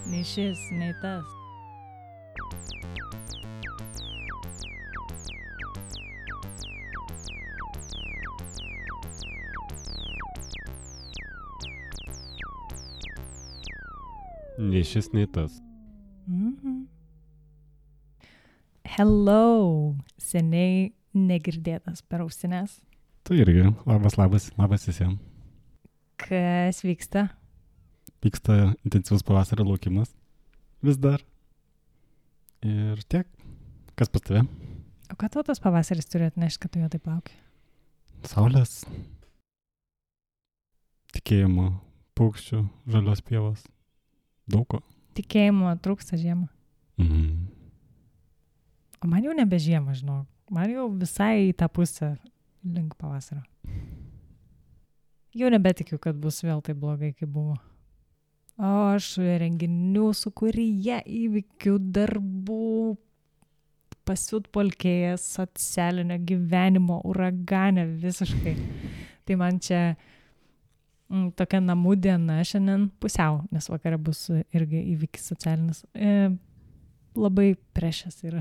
Nei šis, nei tas. Nei šis, nei tas. Hello, seniai negirdėtas per ausines. Tu irgi. Labas visiems. Kas vyksta? Vyksta intensyvus pavasario laukimas. Vis dar. Ir tiek. Kas pas tave? O ką tau tas pavasaris turi atnešti, kad tu jo taip lauki? Saulės. Tikėjimo. Paukščių. Žalios pievos. Daug ko. Tikėjimo trūksta žiemą. Mhm. O man jau nebe žiemą, žinau. Man jau visai į tą pusę link pavasario. Jau nebetikiu, kad bus vėl taip blogai, kaip buvo. O aš renginių sukūryje, įvykių, darbų, pasiutpolkėjęs, socialinio gyvenimo, uragane visiškai. Tai man čia tokia namų diena šiandien pusiau, nes vakare bus irgi įvykis socialinis. Labai precious yra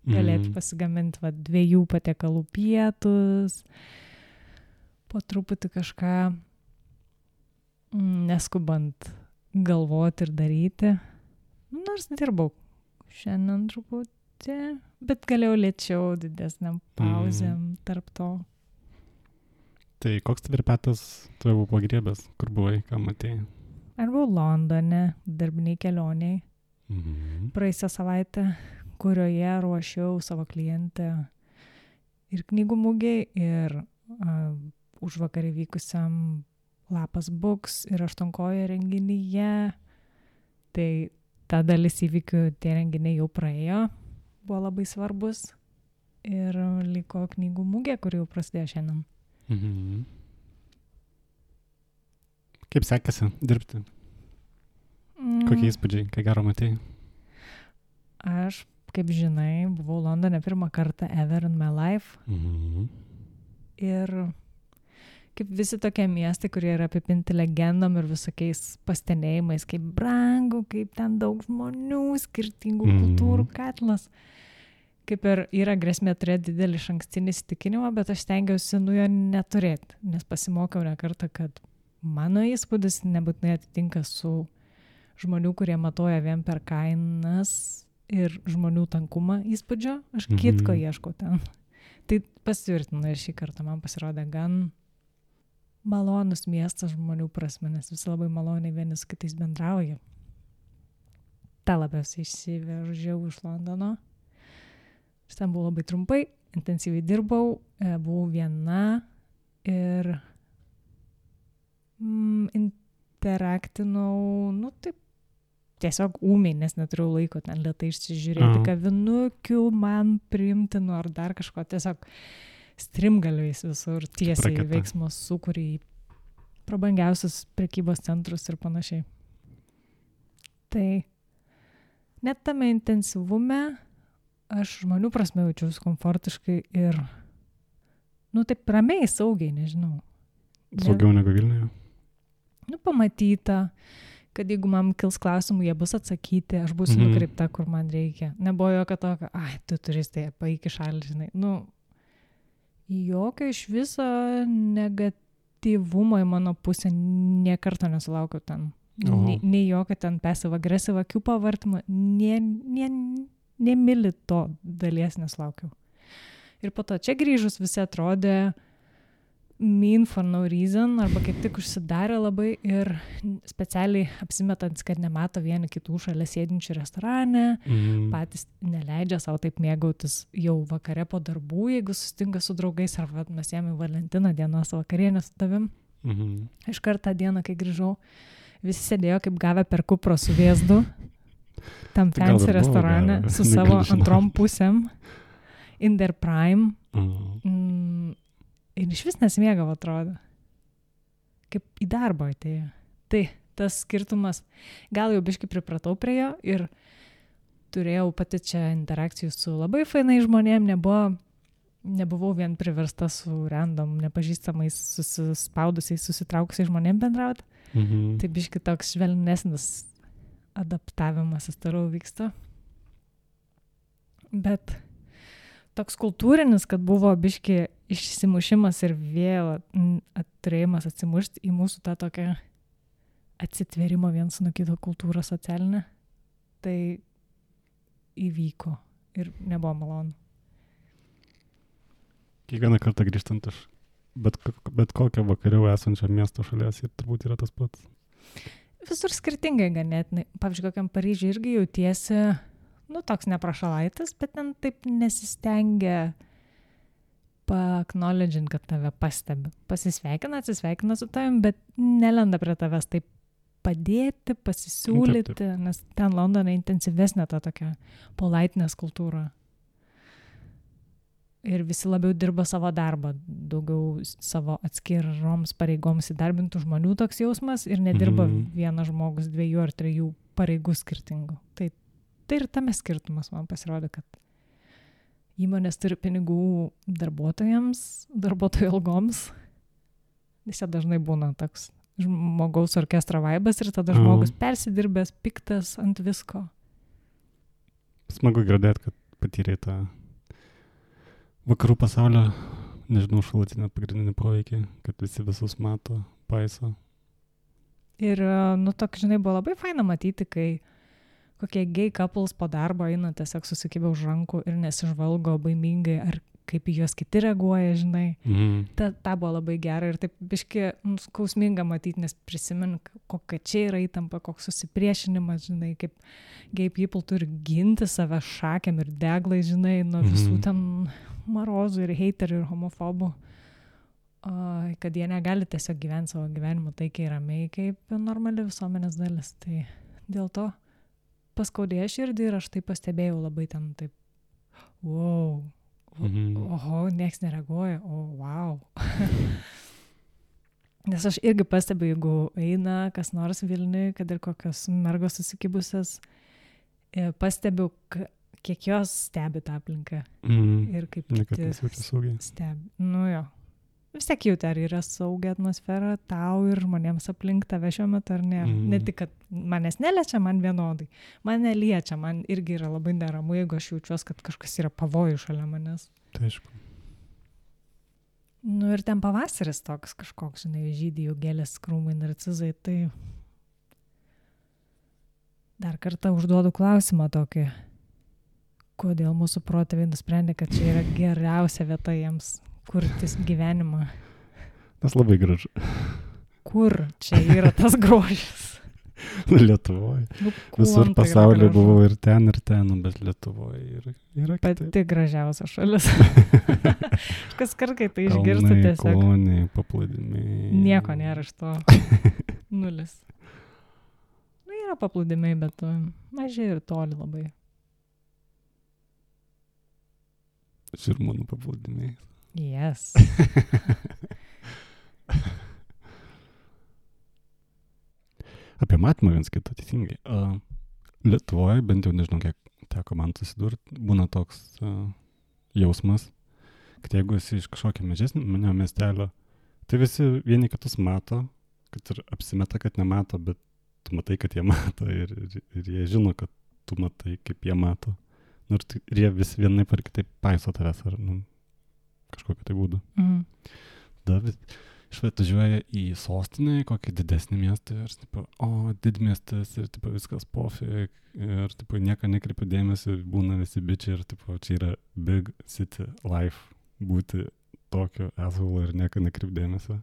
galėti pasigaminti 2 patiekalų pietus, po truputį kažką neskubant galvoti ir daryti. Nors dirbau šiandien truputį, bet galėjau lėčiau didesniam pauzėm tarp to. Tai koks tvirpetas tave buvo pagriebęs? Kur buvai, ką matėjai? Aš buvau Londone, darbiniai kelioniai. Praėjusią savaitę, kurioje ruošiau savo klientę ir knygų mugei, ir užvakar įvykusiam Lapas Books ir Aštuonkojo renginyje. Tai ta dalis įvykių, tie renginiai jau praėjo, buvo labai svarbus. Ir liko knygų mugė, kuri jau prasidėjo šiandien. Kaip sekasi dirbti? Kokie įspūdžiai, ką gero matėjai? Aš, kaip žinai, buvau Londone pirmą kartą ever in my life. Ir kaip visi tokie miestai, kurie yra apipinti legendom ir visokiais pastenėjimais, kaip brangu, kaip ten daug žmonių, skirtingų kultūrų katlas. Kaip ir yra grėsmė turėti didelį išankstinį įsitikinimą, bet aš stengiausi jo neturėti, nes pasimokiau ne kartą, kad mano įspūdis nebūtinai atitinka su žmonių, kurie matuoja vien per kainas ir žmonių tankumą įspūdžio. Aš kitko ieškau ten. Tai pasitvirtinu ir šį kartą man pasirodė gan malonus miestas žmonių prasme, nes visi labai maloniai vieni su kitais bendrauja. Ta labiausiai išsivežiau iš Londono. Aš ten buvau labai trumpai, intensyviai dirbau, buvau viena ir interaktinau, taip, tiesiog ūmiai, nes neturėjau laiko ten lėtai išsižiūrėti kavinukių, man priimtinu ar dar kažko, tiesiog strimgaliais visur tiesiai veiksmo sukūrė į prabangiausius prekybos centrus ir panašiai. Tai net tame intensyvume aš žmonių prasme jaučiausi komfortiškai ir, taip ramiai, saugiai, nežinau. Saugiau negu Vilniuje? Pamatyta, kad jeigu man kils klausimų, jie bus atsakyti, aš būsiu nukreipta, kur man reikia. Nebuvo jokio tokio, tu turistai, paeik į šalį, žinai. Jokio iš viso negatyvumo į mano pusę niekarto nesulaukiau ten. Nei jokio ten passive-aggressive akių pavartymo, nemili to dalies nesulaukiau. Ir po to čia grįžus visi atrodė mean for no reason, arba kaip tik užsidarė labai ir specialiai apsimetant, kad nemato vieni kitų šalia sėdinčių restorane, patys neleidžia savo taip mėgautis jau vakare po darbų, jeigu susitinka su draugais, arba mes jėmė Valentino dienos vakarienę su tavim. Iš kartą dieną, kai grįžau, visi sėdėjo kaip gavę per kupro su vėzdu, tam fancy restorane, su savo antrom pusėm, in their prime. Ir iš vis nesimėgavo, atrodo. Kaip į darbą atėjo. Tai tas skirtumas, gal jau biškai pripratau prie jo ir turėjau pati čia interakcijų su labai fainai žmonėm, nebuvo nebuvau vien priversta su random, nepažįstamais, susispaudusiais, susitraukusiais žmonėm bendrauti. Tai biški toks švelnesnis adaptavimasis toliau vyksta. Bet toks kultūrinis, kad buvo biški išsimušimas ir vėl turėjimas atsimušti į mūsų tą tokią atsitvėrimo viens nuo kito kultūrą socialinę, tai įvyko ir nebuvo malonu. Kiekvieną kartą grįžtant iš bet kokio vakariau esančio miesto šalies ir turbūt yra tas pats. Visur skirtingai ganėtinai. Pavyzdžiui, kokiam Paryžiui irgi jautiesi, toks neprašalaitis, bet ten taip nesistengia pa-acknowledgint, kad tave pastebi. Pasisveikina, atsisveikina su tavim, bet nelenda prie tavęs taip padėti, pasisiūlyti, taip. Nes ten Londone intensyvesnė ta tokia politeness kultūra. Ir visi labiau dirba savo darbą, daugiau savo atskiroms pareigoms įdarbintų žmonių toks jausmas ir nedirba vienas žmogus 2 ar 3 pareigų skirtingų. Tai ir tame skirtumas man pasirodė, kad įmonės turi pinigų darbuotojų algoms. Jis dažnai būna toks žmogaus orkestro vaibas ir tada žmogus persidirbęs, piktas ant visko. Smagu girdėti, kad patyrė tą vakarų pasaulio, nežinau, šalutinę pagrindinį poveikį, kad visi visus mato, paiso. Ir, toks, žinai, buvo labai faina matyti, kai kokie gay couples po darbo eina tiesiog susikibę už rankų ir nesižvalgo baimingai, ar kaip į juos kiti reaguoja, žinai. Ta buvo labai gera ir taip biški skausminga matyti, nes prisimenu, kokia čia yra įtampa, koks susipriešinimas, žinai, kaip gay people turi ginti save šakėm ir deglai, žinai, nuo visų ten marozų ir heiterių ir homofobų, kad jie negali tiesiog gyventi savo gyvenimą taikiai ramiai kaip normali visuomenės dalis. Tai dėl to paskaudėjo širdį ir aš tai pastebėjau labai ten taip, wow, oho, nieks nereaguoja, wow. Nes aš irgi pastebiu, jeigu eina kas nors Vilniui, kad ir kokios mergos susikibusios, pastebiu, kiek jos stebi tą aplinką. Ir kaip kiti stebi. Jo. Vis tiek jauti, ar yra saugia atmosfera tau ir žmonėms aplink tave šiuo metu, ar ne. Ne tik, kad manęs neliečia, man vienodai. Mane liečia, man irgi yra labai neramu, jeigu aš jaučiuos, kad kažkas yra pavojų šalia manęs. Tai aišku. Ir ten pavasaris toks kažkoks, žinai, žydi jau gėlės, krūmai, narcizai, tai dar kartą užduodu klausimą tokį. Kodėl mūsų protėviai nusprendė, kad čia yra geriausia vieta jiems kurtis gyvenimą? Tas labai gražu. Kur čia yra tas grožis? Lietuvoje. Visur pasaulyje buvau ir ten, bet Lietuvoje yra kitaip. Pati gražiausia šalis. Kas kartai tai išgirsta tiesiog. Kalnai, paplūdimiai. Nieko nėra iš to. Nulis. Yra paplūdimiai, bet mažai ir toli labai. Žirmūnų paplūdimiai. Yes. Apie matymą viens kitą, teisingai. Lietuvoje, bent jau nežinau, kiek teko man susidurti, būna toks jausmas, kad jeigu esi iš kažkokio mažesnio miestelio, tai visi vieni kitus mato, kad ir apsimeta, kad nemato, bet tu matai, kad jie mato ir jie žino, kad tu matai, kaip jie mato. Ir jie vis vienaip ar kitaip paiso tavęs ar kažkokiu tai būdu. Išvažiuoja į sostinę, į kokį didesnį miestą ir didmiestas ir viskas pofik ir nieko nekreipiu dėmesį, būna visi bičiai ir čia yra big city life, būti tokio asshole ir nieko nekreipiu dėmesio.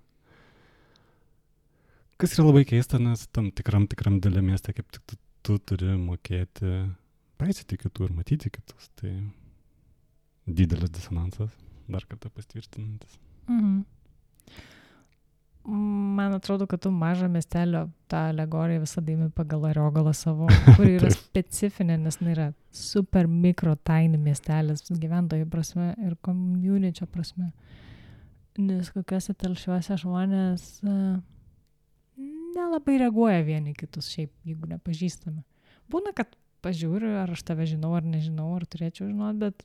Kas yra labai keista, nes tam tikram didelė mieste kaip tik tu turi mokėti paisyti kitų ir matyti kitus. Tai didelis disonansas, dar kartą pastvirtinantis. Man atrodo, kad tu mažą miestelio tą alegoriją visada imi pagal Ariogalą savo, kuri yra specifinė, nes yra super mikro tiny miestelis gyventojų prasme ir community prasme. Nes kokiuose telšiuose žmonės nelabai reaguoja vieni kitus šiaip, jeigu nepažįstame. Būna, kad pažiūriu, ar aš tave žinau, ar nežinau, ar turėčiau žinoti, bet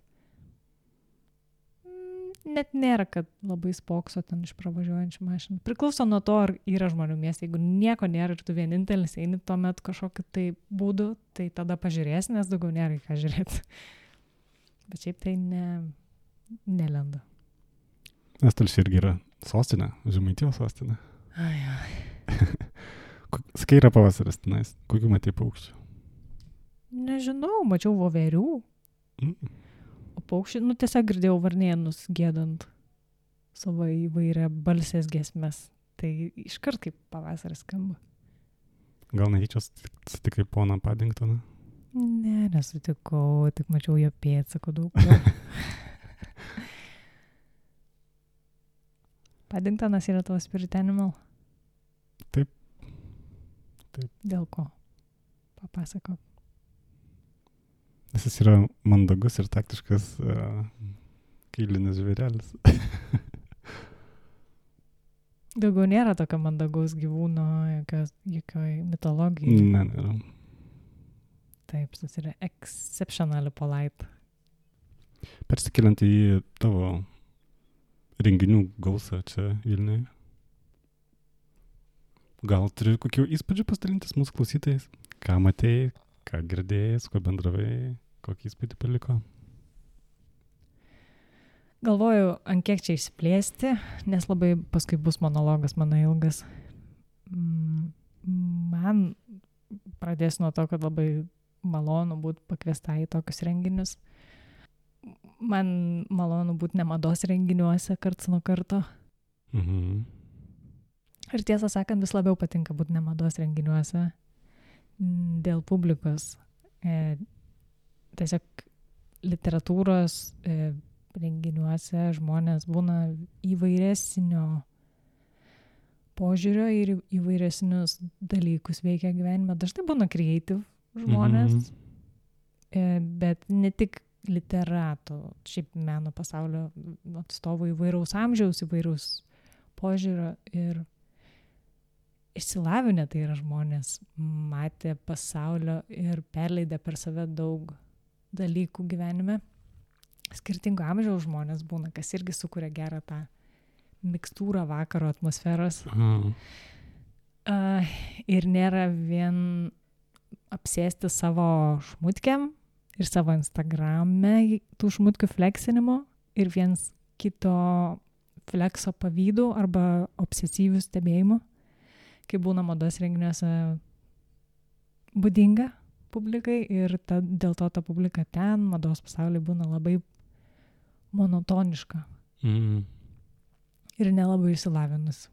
net nėra, kad labai spokso ten iš pravažiuojančių mašinų. Priklauso nuo to, ar yra žmonių mieste. Jeigu nieko nėra ir tu vienintelis eini tuomet kažkokiu tai būdu, tai tada pažiūrėsi, nes daugiau nėra į ką žiūrėti. Bet šiaip tai nelenda. Nes Telšiai irgi yra sostinė, Žemaitijos sostinė. Sakai, yra pavasaris tenais. Kokių matei paukščių? Nežinau, mačiau voverių. O paukščių, tiesiog girdėjau varnėnus giedant savo įvairią balsės giesmes. Tai iškart kaip pavasaris skamba. Gal netyčia sutikai poną Paddingtoną? Ne, nesutikau, tik mačiau jo pėdsakų daug. Paddingtonas yra tavo spirit animal? Taip. Dėl ko? Papasakok. Nes jis yra mandagus ir taktiškas kailinis žvėrelis. Daugiau nėra tokio mandagaus gyvūno, jokioj mitologijai. Ne, nėra. Taip, jis yra exceptionally polite. Persikeliant į tavo renginių gausą čia Vilniuje. Gal turi kokių įspūdžių pasidalintis mūsų klausytojais? Ką matėjai, ką girdėjai, su kuo bendravai, kokį įspūdį paliko? Galvoju, ant kiek čia išsiplėsti, nes labai paskui bus monologas mano ilgas. Man pradėsiu nuo to, kad labai malonu būti pakviesta į tokius renginius. Man malonu būti ne mados renginiuose karts nuo karto. Ir tiesą sakant, vis labiau patinka būti ne mados renginiuose dėl publikos. Tiesiog literatūros renginiuose žmonės būna įvairesnio požiūrio ir įvairesnius dalykus veikia gyvenime. Dažnai būna creative žmonės, bet ne tik literatų, šiaip meno pasaulio atstovų įvairaus amžiaus, įvairaus požiūrio ir išsilavinę tai yra žmonės, matė pasaulio ir perleidę per save daug dalykų gyvenime. Skirtingo amžiaus žmonės būna, kas irgi sukuria gerą tą mikstūrą vakaro atmosferos. Ir nėra vien apsėsti savo šmutkiam ir savo Instagrame tų šmutkių fleksinimo ir viens kito flekso pavydų arba obsesyvių stebėjimų, kai būna mados renginiuose būdinga publikai ir dėl to ta publika ten, mados pasaulyje būna labai monotoniška ir nelabai išsilavinus.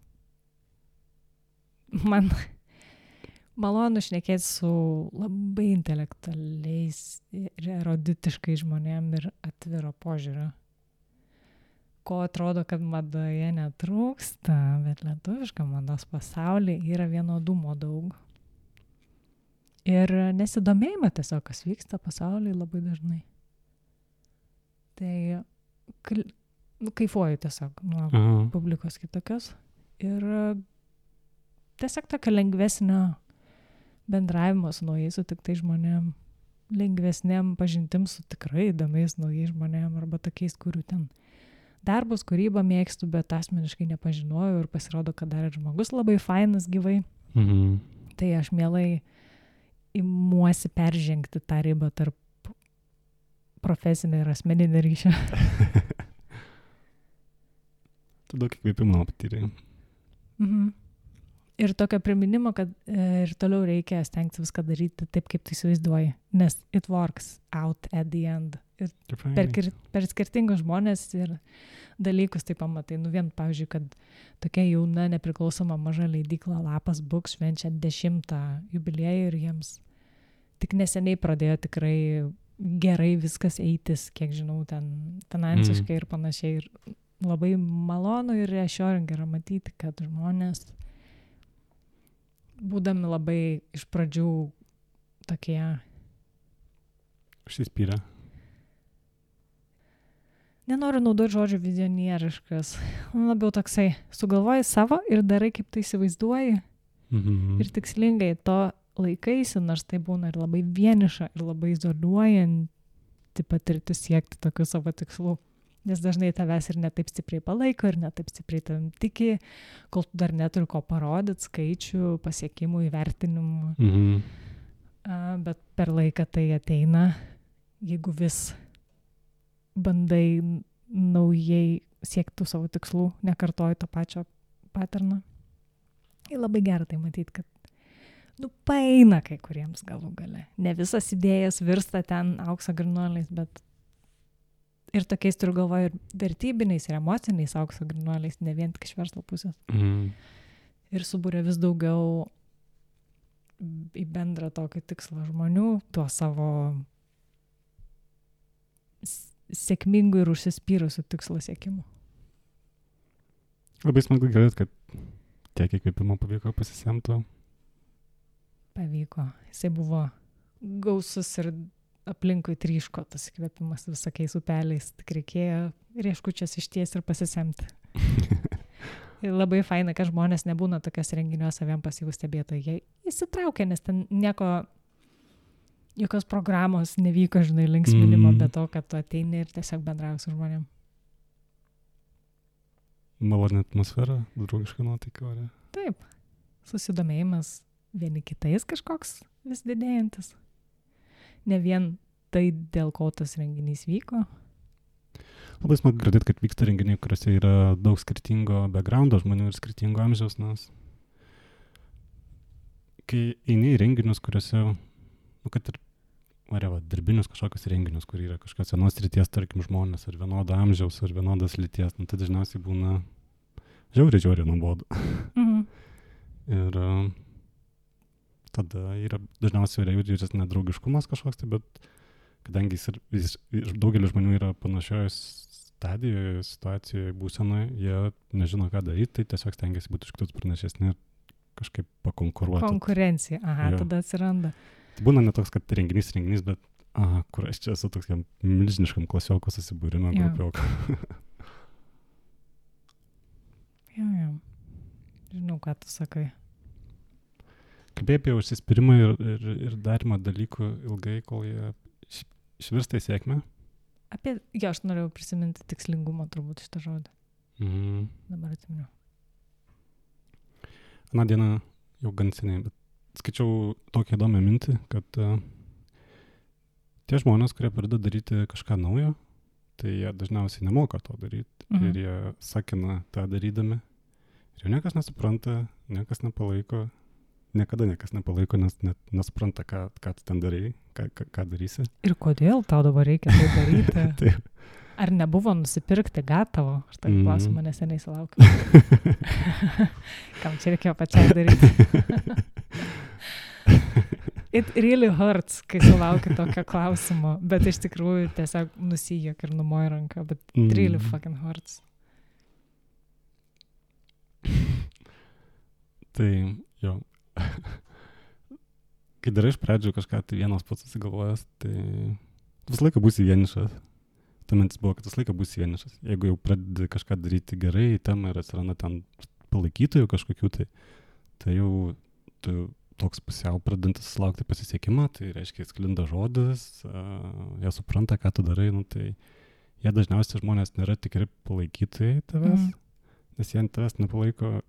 Man malonu šnekėti su labai intelektualiais ir eruditiškai žmonėm ir atviro požiūrio. Ko atrodo, kad madoje netrūksta, bet lietuviška mados pasaulyje yra vienodumo daug. Ir nesidomėjimą tiesiog, kas vyksta pasaulyje labai dažnai. Tai kaifuoju tiesiog nuo publikos kitokios. Ir tiesiog tokio lengvesnio bendravimo su naujais sutiktais žmonėm, lengvesnėm pažintim su tikrai įdomiais naujais žmonėm arba tokiais, kurių ten darbus, kūrybą mėgstu, bet asmeniškai nepažinojau ir pasirodo, kad dar ir žmogus labai fainas gyvai. Tai aš mielai imuosi peržengti tą ribą tarp profesinio ir asmeninio ryšio. Tu daug įkvėpimo patyrei. Ir tokio priminimo, kad ir toliau reikia stengti viską daryti taip, kaip tu įsivaizduoji, nes it works out at the end. Ir per skirtingus žmonės ir dalykus tai pamatai. Vien, pavyzdžiui, kad tokia jauna, nepriklausoma maža leidykla Lapas Books švenčia 10 jubiliejų ir jiems tik neseniai pradėjo tikrai gerai viskas eitis, kiek žinau, ten finansiškai ir panašiai. Ir labai malonu ir reassuring yra matyti, kad žmonės, būdami labai iš pradžių tokie užsispyrę. Nenoriu naudoti žodžio vizionieriškas. Labiau toksai, sugalvoji savo ir darai, kaip tai įsivaizduoji. Ir tikslingai to laikaisi, nors tai būna ir labai vieniša, ir labai izoliuojanti patirtis siekti tokių savo tikslų. Nes dažnai tavęs ir netaip stipriai palaiko, ir netaip stipriai tavim tiki, kol tu dar neturi ko parodyti, skaičių, pasiekimų, įvertinimų. Bet per laiką tai ateina, jeigu vis bandai naujai siekti savo tikslų, nekartoji to pačio paterno. Ir labai gerai tai matyti, kad paeina kai kuriems galų gale. Ne visas idėjas virsta ten aukso grynuoliais, bet ir tokiais turiu galvoje ir vertybiniais, ir emociniais aukso grynuoliais, ne vien tik iš verslo pusės. Ir subūrė vis daugiau į bendrą tokį tikslą žmonių, tuo savo sėkmingų ir užsispyrusių tikslo siekimu. Labai smagu girdėti, kad tiek įkvėpimo pavyko pasisemti. Pavyko. Jisai buvo gausus ir aplinkui tryško tas įkvėpimas visokiais upeliais. Tik reikėjo rieškučias išties ir pasisemti. Ir labai faina, kad žmonės nebūna tokios renginiuose vien pasyvūs stebėtojai. Jie įsitraukia, nes ten jokios programos nevyko, žinai, linksminimo, be to, kad tu ateini ir tiesiog bendrauji su žmonėm. Maloni atmosfera, draugiška nuotaika, ar ne? Taip. Susidomėjimas vieni kitais kažkoks vis didėjantis. Ne vien tai, dėl ko tas renginys vyko. Labai smagu girdėti, kad vyksta renginiai, kuriuose yra daug skirtingo backgroundo žmonių ir skirtingo amžiaus, nes kai eini į renginius, kuriuose, kad ir darbinius kažkokius renginius, kur yra kažkokios vienos ryties, tarkim, žmonės, ar vienodo amžiaus, ar vienodas lyties, tai dažniausiai būna žiauriai nuobodu. Ir tada yra dažniausiai jaučiasi nedraugiškumas kažkoks, tai, bet kadangi jis daugelis žmonių yra panašioje stadijoje, situacijoje, būsenoje, jie nežino, ką daryti, tai tiesiog stengiasi būti iš kitus pranašesni ir kažkaip pakonkuruoti. Konkurencija, tada atsiranda. Tai būna ne toks, kad renginys, bet kur aš čia esu toks milžiniškam klasioko susibūrime grupioko. Jo. Žinau, ką tu sakai. Kalbėjai apie užsispyrimą ir darymą dalykų ilgai, kol jie išvirsta į sėkmę? Aš norėjau prisiminti tikslingumą turbūt šitą žodį. Dabar atsiminiau. Aną dieną jau gan seniai, bet skaičiau tokią įdomią mintį, kad tie žmonės, kurie pradeda daryti kažką naujo, tai jie dažniausiai nemoka to daryti ir jie sakina tą darydami. Ir jau niekas nesupranta, niekas nepalaiko, niekada niekas nepalaiko, nes net nesupranta, ką tu ten darai, ką darysi. Ir kodėl tau dabar reikia tai daryti? Taip. Ar nebuvo nusipirkti gatavo? Aš tai klausimą neseniai sulaukiu. Kam čia reikėjo pačiai daryti? It really hurts, kai sulaukiu tokio klausimo, bet iš tikrųjų tiesiog nusijok ir numoji ranką, bet it really fucking hurts. Tai jo. Kai darai iš pradžių kažką, tai vienas pats susigalvojęs, tai visą laiką būsi vienišas. Ta mintis buvo, kad visą laiką būsi vienišas. Jeigu jau pradedi kažką daryti gerai, temą ir atsiranda ten palaikytojų kažkokių, tai jau tu toks pusiau pradedantis laukti pasisekimą, tai reiškia, sklinda žodis, jie supranta, ką tu darai, tai jie dažniausiai žmonės nėra tikri palaikytojai tavęs, nes jie tavęs nepalaiko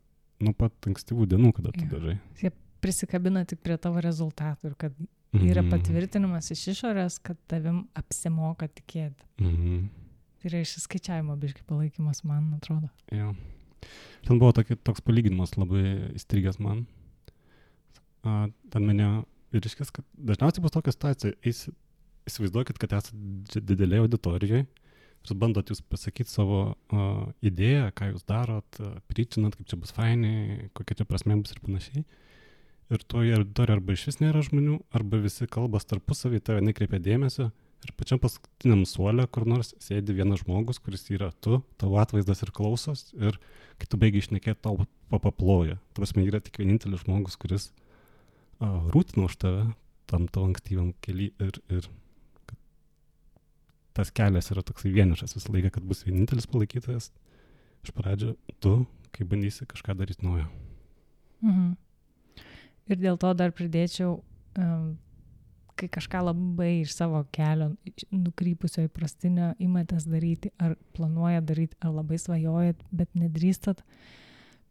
nuo pat ankstyvų dienų, kada tu darai. Jie prisikabina tik prie tavo rezultatų ir kad yra patvirtinimas iš išorės, kad tavim apsimoka tikėti. Tai yra išsiskaičiavimo biškai palaikymas, man atrodo. Jo. Ten buvo toks palyginimas labai įstrigęs man. Ten minėjo vyriškis, kad dažniausiai bus tokia situacija. Įsivaizduokit, kad esate didelėje auditorijoje ir bandot jūs pasakyti savo idėją, ką jūs darot, pričinat, kaip čia bus fainai, kokia čia prasmė bus ir panašiai. Ir toje auditorijoje arba iš vis nėra žmonių, arba visi kalbas tarpusavį, tave nekreipia dėmesio. Ir pačiam paskutiniam suole, kur nors sėdi vienas žmogus, kuris yra tu, tavo atvaizdas ir klausos, ir kai tu baigiai šnekėti, tau papaploja. Prasme, yra tik vienintelis žmogus, kuris rūtina už tave tam tavo ankstyvam kely ir tas kelias yra toksai vienišas visą laiką, kad bus vienintelis palaikytojas. Iš pradžio tu, kai bandysi kažką daryti naujo. Ir dėl to dar pridėčiau, kai kažką labai iš savo kelio nukrypusio įprastinio imatės daryti, ar planuoja daryti, ar labai svajojat, bet nedrįstat,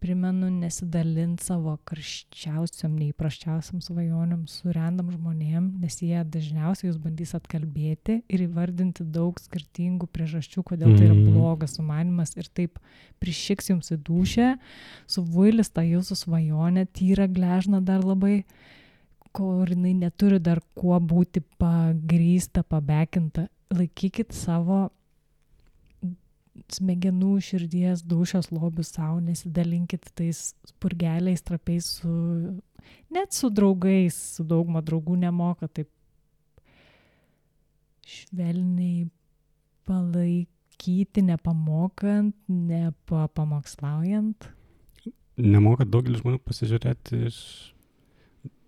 primenu nesidalinti savo karščiausiam, neįprasčiausiam svajoniam su random žmonėm, nes jie dažniausiai jūs bandys atkalbėti ir įvardinti daug skirtingų priežasčių, kodėl tai yra blogas sumanimas ir taip prišiks jums į dūšę, suvuilis tą jūsų svajonę, tyra gležna dar labai, kur jinai neturi dar kuo būti pagrįsta, pabekinta. Laikykit savo smegenų, širdies, dūšios lobių savo, nesidalinkit tais spurgeliais, trapiais net su draugais, su dauguma draugų nemoka taip švelniai palaikyti, nepamokant, nepamokslaujant. Nemoka daugelis žmonių pasižiūrėti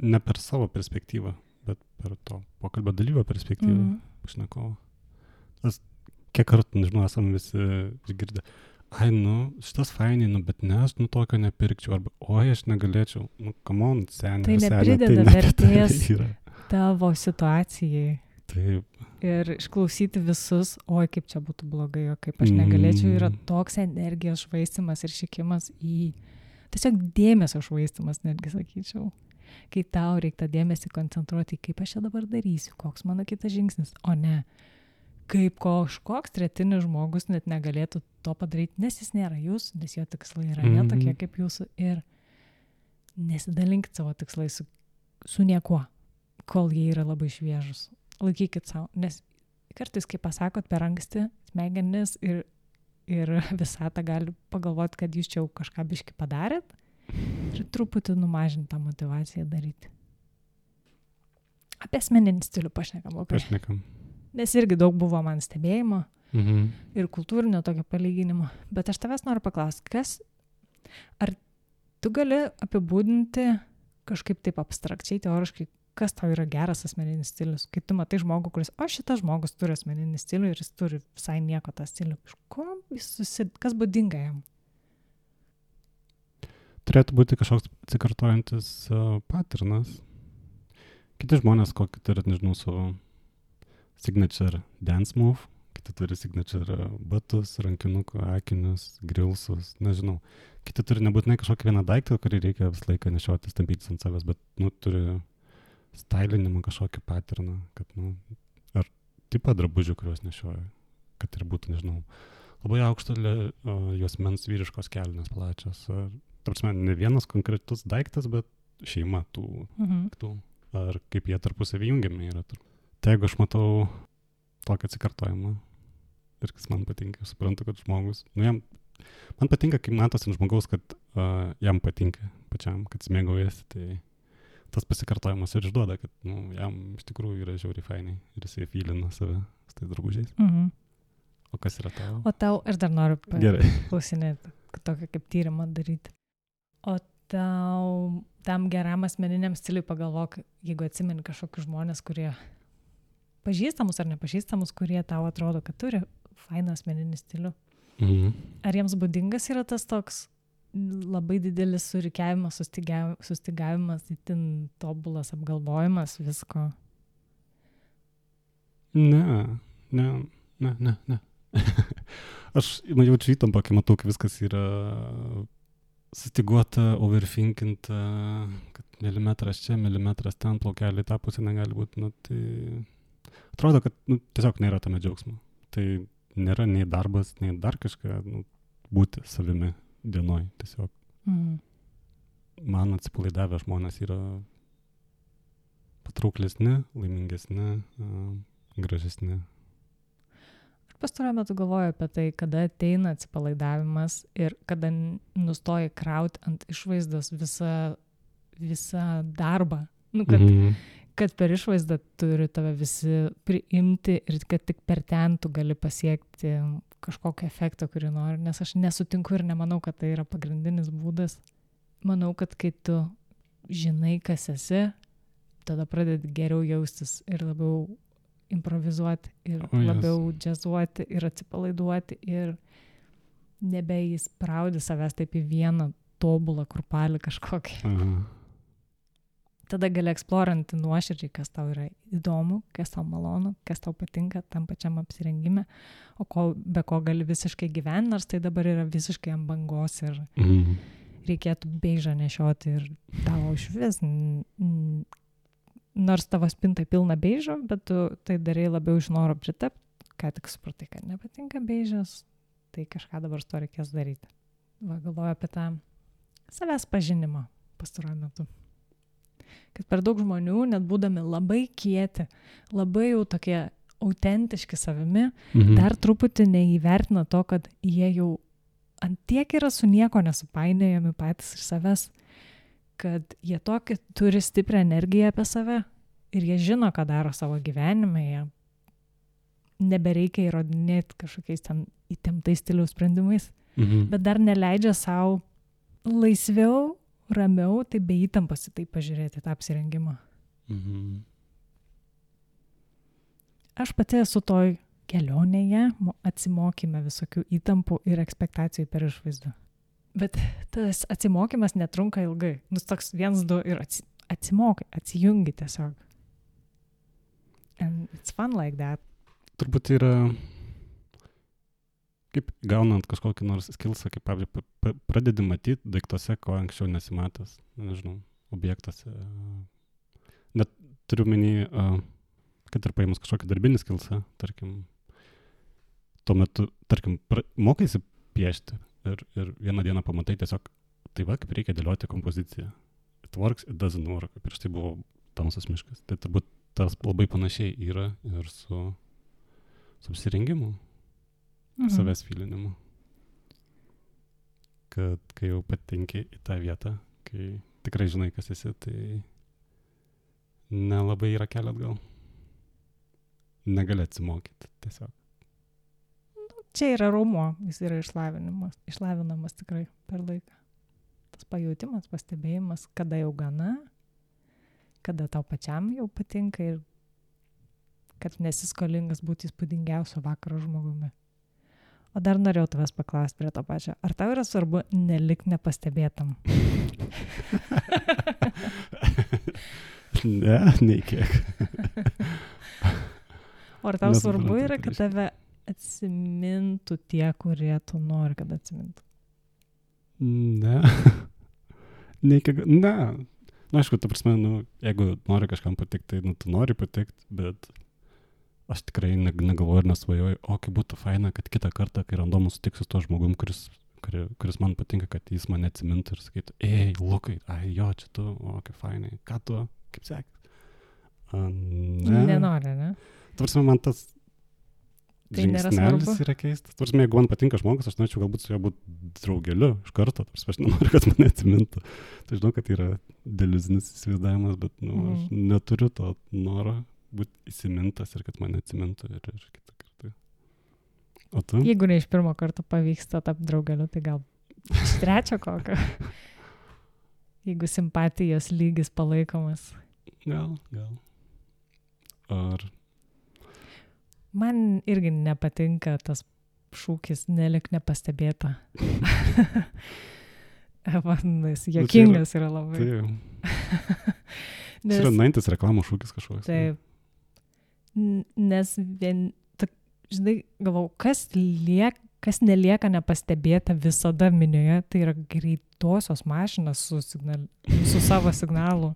ne per savo perspektyvą, bet per to pokalbio dalyvio perspektyvą, pašnekovo. Kiek kartų, nežinau, esame visi išgirdę, šitas fainai, bet ne, aš tokio nepirkčiau, arba, aš negalėčiau, come on, senė. Tai neprideda vertės tavo situacijai. Taip. Ir išklausyti visus, kaip čia būtų blogai, kaip aš negalėčiau, yra toks energijos švaistimas ir šikimas į tiesiog dėmesio švaistimas, netgi sakyčiau. Kai tau reikia tą dėmesį koncentruoti, kaip aš čia dabar darysiu, koks mano kitas žingsnis, o ne kaip kažkoks tretinis žmogus net negalėtų to padaryti, nes jis nėra jūs, nes jo tikslai yra ne tokie kaip jūsų ir nesidalinkit savo tikslai su niekuo, kol jie yra labai šviežus. Laikykit savo, nes kartais, kai pasakot per anksti, smegenis ir visata gali pagalvoti, kad jūs čia jau kažką biškį padarėt, ir truputį numažinti tą motivaciją daryti. Apie asmeninį stilių pašnekam. Nes irgi daug buvo man stebėjimo ir kultūrinio tokio palyginimo. Bet aš tavęs noriu paklausti, ar tu gali apibūdinti kažkaip taip abstrakčiai, teoriškai, kas tau yra geras asmeninis stilius? Kai tu matai žmogų, kuris, šitas žmogus turi asmeninį stilių ir jis turi visai nieko tą stilių. Kas būdinga jam? Turėtų būti kažkoks atsikartojantis paternas. Kiti žmonės kokį turi, nežinau, savo signature dance move, kiti turi signature batus, rankinuką, akinius, grilsus, nežinau. Kiti turi nebūtinai kažkokį vieną daiktą, kurį reikia visą laiką nešiotis, tampytis ant savęs, bet, turi stylinimą kažkokį paterną, kad, ar tipą drabužių, kuriuos nešioja, kad ir būtų, nežinau, labai aukšto juosmens vyriškos kelnės plačios, ar ne vienas konkretus daiktas, bet šeima tų, ar kaip jie tarpusavį jungiami yra. Tai jeigu aš matau tokį atsikartojimą ir kas man patinka, aš suprantu, kad žmogus, man patinka, kai matosi ant žmogaus, kad jam patinka pačiam, kad smėgaujasi, tai tas pasikartojimas ir išduoda, kad jam iš tikrųjų yra žiauriai fainai ir jisai fylina save su tais drabužiais. O kas yra tavo? O tau, aš dar noriu klausinėti, tokį kaip tyrimą daryti. O tau, tam geram asmeniniam stiliui pagalvok, jeigu atsimeni kažkokius žmonės, kurie pažįstamus ar nepažįstamus, kurie tau atrodo, kad turi fainą asmeninį stilių. Ar jiems būdingas yra tas toks labai didelis surikiavimas, sustygavimas, itin tobulas apgalvojimas visko? Ne. Aš jaučiu įtampą, kai matau, kai viskas yra sustiguota, overthinkinta, kad milimetras čia, milimetras ten, plaukelį tą pusę negali būti. Tai atrodo, kad tiesiog nėra tame džiaugsmo. Tai nėra nei darbas, nei dar kažką, būti savimi dienoj tiesiog. Man atsipalaidavę žmonės yra patrauklesni, laimingesni, gražesni. Pastaruoju metu galvoju apie tai, kada ateina atsipalaidavimas ir kada nustoji krauti ant išvaizdos visą darbą. Kad per išvaizdą turi tave visi priimti ir kad tik per ten tu gali pasiekti kažkokį efektą, kurį nori. Nes aš nesutinku ir nemanau, kad tai yra pagrindinis būdas. Manau, kad kai tu žinai, kas esi, tada pradedi geriau jaustis ir labiau improvizuoti ir labiau džiazuoti ir atsipalaiduoti ir nebeįspraudi savęs taip į vieną tobulą kurpalį kažkokį. tada gali eksploranti nuoširdžiai, kas tau yra įdomu, kas tau malonu, kas tau patinka tam pačiam apsirengime, o be ko gali visiškai gyventi, nors tai dabar yra visiškai ant bangos ir reikėtų beižą nešioti ir tavo iš vis, nors tavo spinta pilna beižo, bet tu tai darai labiau iš noro pritapti, ką tik supratai, kad nepatinka beižas, tai kažką dabar su to reikės daryti. Va, galvoju apie tą savęs pažinimą pastaruoju metu. Kad per daug žmonių, net būdami labai kieti, labai jau tokie autentiški savimi, dar truputį neįvertina to, kad jie jau ant tiek yra su nieko nesupainėjami patys iš savęs, kad jie tokį turi stiprią energiją apie save ir jie žino, ką daro savo gyvenime, jie nebereikia įrodinėti kažkokiais ten įtemptais stiliaus sprendimais, bet dar neleidžia savo laisviau, ramiau, tai be įtampos į tai pažiūrėti, tą apsirengimą. Aš pati esu toj kelionėje, atsimokyme visokių įtampų ir ekspektacijų per išvaizdą. Bet tas atsimokymas netrunka ilgai. Toks 1-2 ir atsimokai, atsijungi tiesiog. And it's fun like that. Turbūt yra, kaip gaunant kažkokį nors skillsą, kaip pavyzdžiui, pradedi matyti daiktuose, ko anksčiau nesimatęs, nežinau, objektuose. Net turiu menį, kad ir paėmus kažkokį darbinį skillsą, tarkim, tuo metu, tarkim, mokaisi piešti ir vieną dieną pamatai tiesiog, tai va, kaip reikia dėlioti kompoziciją. It works, it doesn't work. Prieš tai buvo tamsus miškas. Tai turbūt tas labai panašiai yra ir su apsirengimu, savęs filinimu. Kad kai jau patenki į tą vietą, kai tikrai žinai, kas esi, tai nelabai yra kelio atgal. Negali atsimokyti tiesiog. Čia yra raumuo, jis yra išlavinamas tikrai per laiką. Tas pajautimas, pastebėjimas, kada jau gana, kada tau pačiam jau patinka ir kad nesi skolingas būti įspūdingiausio vakaro žmogumi. O dar norėjau tavęs paklausti prie to pačio. Ar tau yra svarbu nelikti nepastebėtam? Ne, nei kiek. O ar tau svarbu yra, kad tave atsimintų tie, kurie tu nori, kad atsimintų? Ne. Nei kiek. Ne. Aišku, ta prasme, jeigu nori kažkam patikti, tai tu nori patikti, bet aš tikrai negalvoju ir nesvajoju, kaip būtų faina, kad kitą kartą, kai randomu sutiksiu su tuo žmogum, kuris man patinka, kad jis mane atsimintų ir sakytų, Lukai, jo, čia tu, kaip fainai, ką tu, kaip sekės? Ne. Nenori, ne? Ta prasme, man tas tai žingsnelis yra keistas. Ta prasme, jeigu man patinka žmogus, aš norėčiau galbūt su juo būti draugeliu iš karto, ta prasme, aš nenoriu, kad mane atsimintų. Tai žinau, kad yra deliuzinis įsivaizdavimas, bet aš neturiu to noro būti įsimintas ir kad mane atsimintų ir kitą kartą. O tu? Jeigu ne iš pirmo karto pavyksta tapti draugeliu, tai gal iš trečio kokio. Jeigu simpatijos lygis palaikomas. Gal. Ar... Man irgi nepatinka tas šūkis nelik nepastebėta. Jis juokingas yra labai. Tai yra nuintis reklamų šūkis kažkoks. Taip. Nes žinai, galvau, kas nelieka nepastebėta visada minioje, tai yra greitosios mašinos su savo signalu.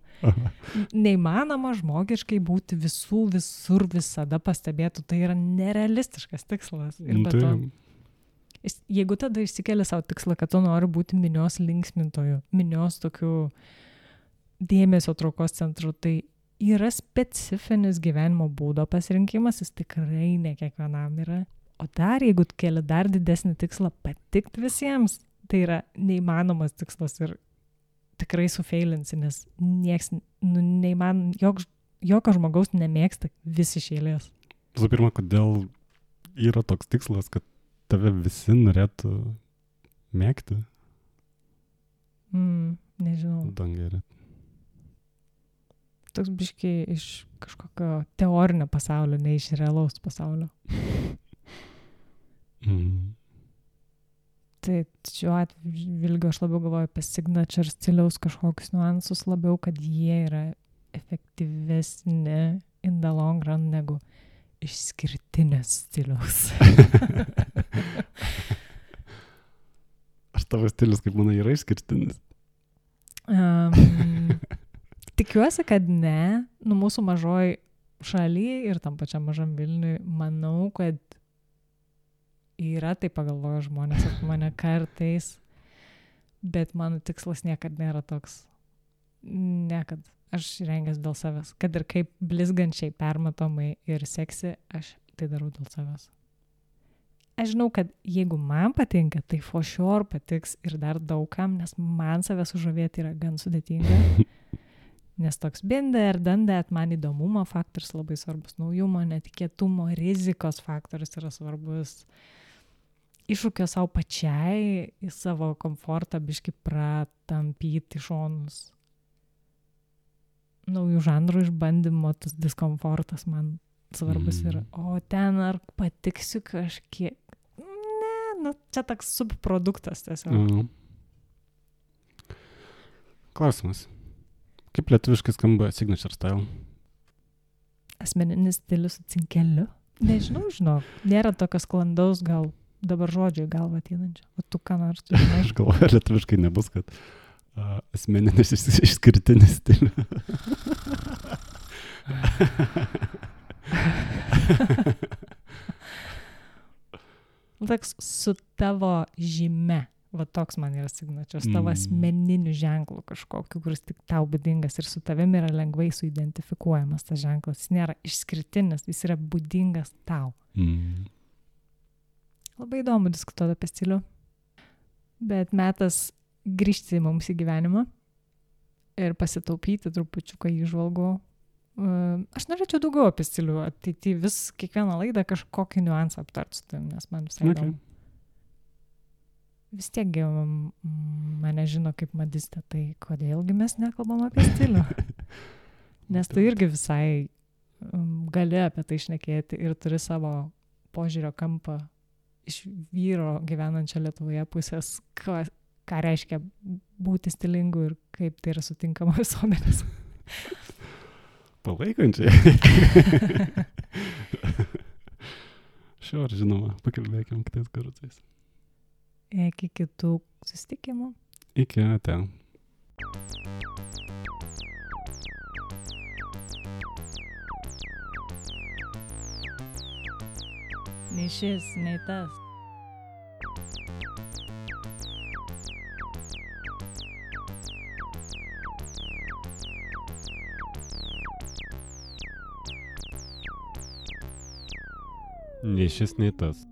Neįmanoma žmogiškai būti visur visada pastebėtų, tai yra nerealistiškas tikslas. Ir be to, jeigu tada išsikeli savo tikslą, kad tu nori būti minios linksmintojų, minios tokių dėmesio traukos centrų, tai yra specifinis gyvenimo būdo pasirinkimas, jis tikrai ne kiekvienam yra. O dar, jeigu keli dar didesnį tikslą patikti visiems, tai yra neįmanomas tikslas ir tikrai sufeilinsi, nes nieks, jokio žmogaus nemėgsta visi iš eilės. Visų pirma, kodėl yra toks tikslas, kad tave visi norėtų mėgti? Nežinau. Dangerė. Toks biškiai iš kažkokio teorinio pasaulio, ne iš realaus pasaulio. Tai šiuo atvilgiu aš labiau galvoju apie signature stiliaus kažkokius niuansus labiau, kad jie yra efektyvesni in the long run negu išskirtinės stiliaus. Ar tavo stilius, kaip manai, yra išskirtinis? Tikiuosi, kad ne. Mūsų mažoj šaly ir tam pačiam mažam Vilniui, manau, kad yra, tai pagalvoju žmonės apie mane kartais, bet mano tikslas niekad nėra toks. Niekad. Aš rengęs dėl savęs. Kad ir kaip blizgančiai, permatomai ir seksi, aš tai darau dėl savęs. Aš žinau, kad jeigu man patinka, tai for sure patiks ir dar daugam, nes man save sužavėti yra gan sudėtinga. Nes toks binder, dandet, man įdomumo faktorius labai svarbus, naujumo, netikėtumo, rizikos faktorius yra svarbus. Iššūkio savo pačiai, į savo komfortą biškį pratampyti šonus. Naujų žanrų išbandymo, tas diskomfortas man svarbus yra. O ten ar patiksiu kažkiek? Ne, čia toks subproduktas tiesiog. Klausimas. Kaip lietuviškai skamba signature style? Asmeninis stilius su cinkeliu? Nežinau, nėra tokio sklandaus gal dabar žodžio į galvą ateinančio. O tu ką nors žinai? Aš galvoju, lietuviškai nebus, kad asmeninis išskirtinis stilius. Toks su tavo žyme. Va toks man yra signature. Su tavo asmeniniu ženklu kažkokiu, kuris tik tau būdingas ir su tavimi yra lengvai suidentifikuojamas tas ženklas. Jis nėra išskirtinis, jis yra būdingas tau. Labai įdomu diskutuoti apie stilių. Bet metas grįžti mums į gyvenimą ir pasitaupyti trupučiuką įžvalgų. Aš norėčiau daugiau apie stilių ateityje, vis kiekvieną laidą kažkokį niuansą aptart su tavim, nes man visai įdomu. Vis tiek mane žino kaip madistė, tai kodėlgi mes nekalbam apie stilių? Nes tu irgi visai gali apie tai šnekėti ir turi savo požiūrio kampą iš vyro gyvenančio Lietuvoje pusės, ką reiškia būti stilingu ir kaip tai yra sutinkama visuomenės. Palaikančiai. Žinoma, pakalbėkim kitais kartais. Iki kitų susitikimų. Iki ate. Nei šis, nei tas. Nei šis, nei tas.